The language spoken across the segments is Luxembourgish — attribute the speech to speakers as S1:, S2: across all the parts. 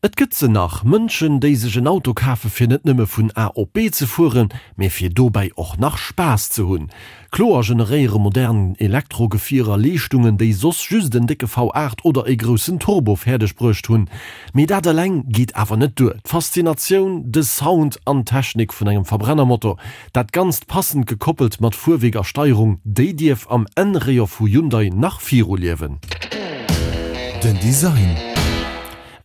S1: Et gëtt se nach, Mënschen, déi sech en Auto kafe fir net nëmme vun A op B ze fueren, mee fir dobäi och nach Spaass ze hunn. Kloer generéiere modern Elektrogefierer Leeschtungen, déi soss just en décke V8 oder e groussen Turbo fäerdeg bruecht hunn. Mee dat eleng geet awer net duer. D'Faszinatioun, de Sound an d'Technik vun engem Verbrennermotor, dat Ganzt passend gekoppelt mat Fuerwierk a Steierung, déi dierf am N-Rayon vu Hyundai nach viruliewen.
S2: Den Design.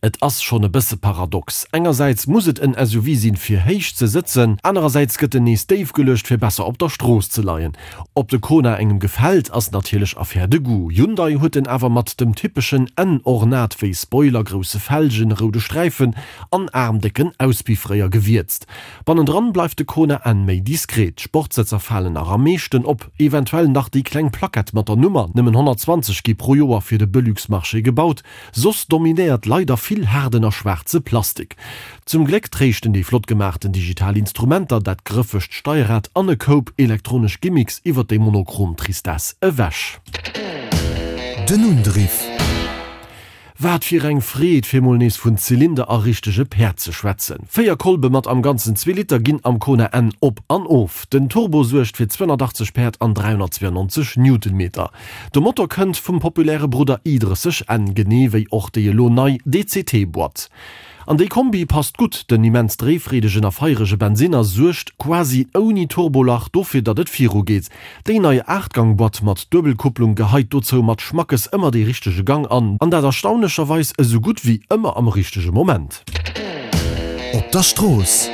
S1: Et ass schonn e bësse paradox, engersäits muss et en SUV sinn fir héich ze sëtzen, anerersäits gëtt en nees déif geluecht fir besser op der Strooss ze leien. Ob de Kona engem gefält ass natierlech Affaire de goût. Hyundai huet en awer mat dem typeschen N-Ornat wéi Spoiler, grousse Felgen, roude Sträifen an aarmdécken Auspiffréier gewierzt. Bannendran bleift de Kona N méi diskret, d'Sportsëtzer falen nach am meeschten op, eventuell nach déi kleng Plackett mat der Nummer, nëmmen 120 gi pro Joer fir de Belux-Marché gebaut. Soss dominéiert leider vill haarden a schwaarze Plastik. Zum Gléck tréischten déi flott gemaachten digital Instrumenter, dat grëffegt Steierrad an e Koup elektronesch Gimmicks iwwer déi monochrom Tristesse ewech.
S2: Den Undriff.
S1: Wat fir eng Freed, fir mol nees vun Zylinder a richtege Päerd ze schwätzen. 4 Kolbe mat am Ganzen zwee Liter ginn am Kona N op an of. Den Turbo suergt fir 280 Päerd an 392 Newtonmeter. De Motor kënnt vum populäre Brudder i30 N, genee wéi och déi elo nei DCT-Boîte. An déi Kombi passt gutt, den immens dréifreedegen a feierege Bensinner suergt quasi ouni Turbolach dofir, datt et viru geet. Déi nei Aachtgang-Boîte mat Duebelkupplung geheit dozou mat Schmackes ëmmer dee richtege Gang an, an dat erstaunlecherweis esou gutt wéi ëmmer am richtege Moment.
S2: Op der Strooss.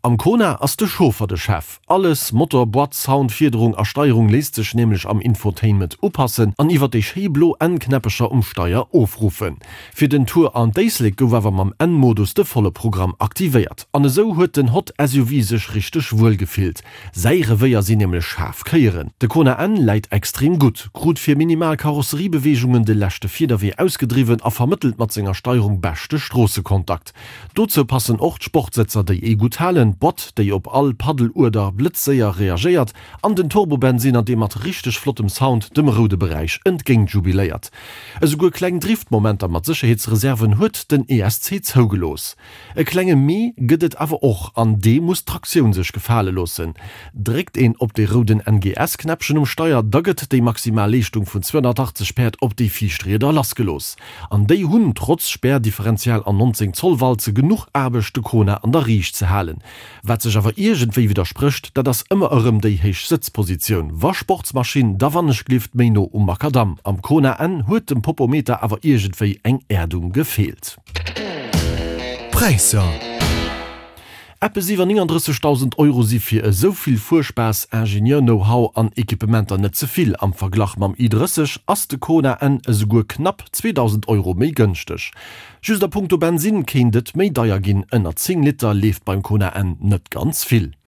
S1: Am Kona ass de Chauffer de Chef. Alles, Motor, Boîte, Sound, Fiederung a Steierung, léisst sech nämlech am Infotainment upassen an iwwer déi schéi blo N-Knäppecher um Steier ofruffen. Fir den Tour an d'Éislek gouf awer mam N-Modus de volle Programm aktivéiert. An esou huet den Hot SUV sech richteg wuel gefillt. Säi Revéier sinn nämlech schaarf Kéieren. De Kona N läit extrem gutt, krut fir minimal Karosseriebeweegungen de leschte Fiederwee ausgedriwwen a vermëttelt mat senger Steierung beschte Stroossekontakt. Dozou passen och d'Sportsëtzer, déi ee gutt halen, d'Boîte, déi op all Paddelueder blëtzséier reagéiert, an den Turbobensinner, dee mat richteg flottem Sound dem roude Beräich entgéint jubiléiert. Esouguer kleng Driftmomenter mat Sécherheetsreserven huet den ESC zougelooss. E klenge Mee gëtt et awer och, an dee muss d'Traktioun sech gefale loossen. Dréckt een op de rouden NGS-Knäppchen um Steier, da gëtt déi maximal Leeschtung vun 280 Päerd op déi viischt Rieder lassgelooss. An déi hunn, trotz Spärdifferential an 19 Zoll Walze, genuch Aarbecht de Kona an der Riicht ze halen. Wat sech awer iergendwéi widdersprécht, dat ass ëmmer erëm déi héich Sëtzpositioun. Wa Sportsmaschinn, da wannechglift méi no um Makadamm. Am Kona N huet dem Popometer awer iergendwéi eng Äerdung gefeelt.
S2: Präisser.
S1: Eppes iwwer 39.000 Euro si fir esou vill Fuerspaass, Ingenieur-Know-how an Equipementer net ze vill. Am Verglach mam i30 ass de Kona N esouguer knapp 2.000 Euro méi gënschteg. Just a punkto Bensinn kéint et méi deier ginn, ënner 10 Liter leeft beim Kona N net ganz vill.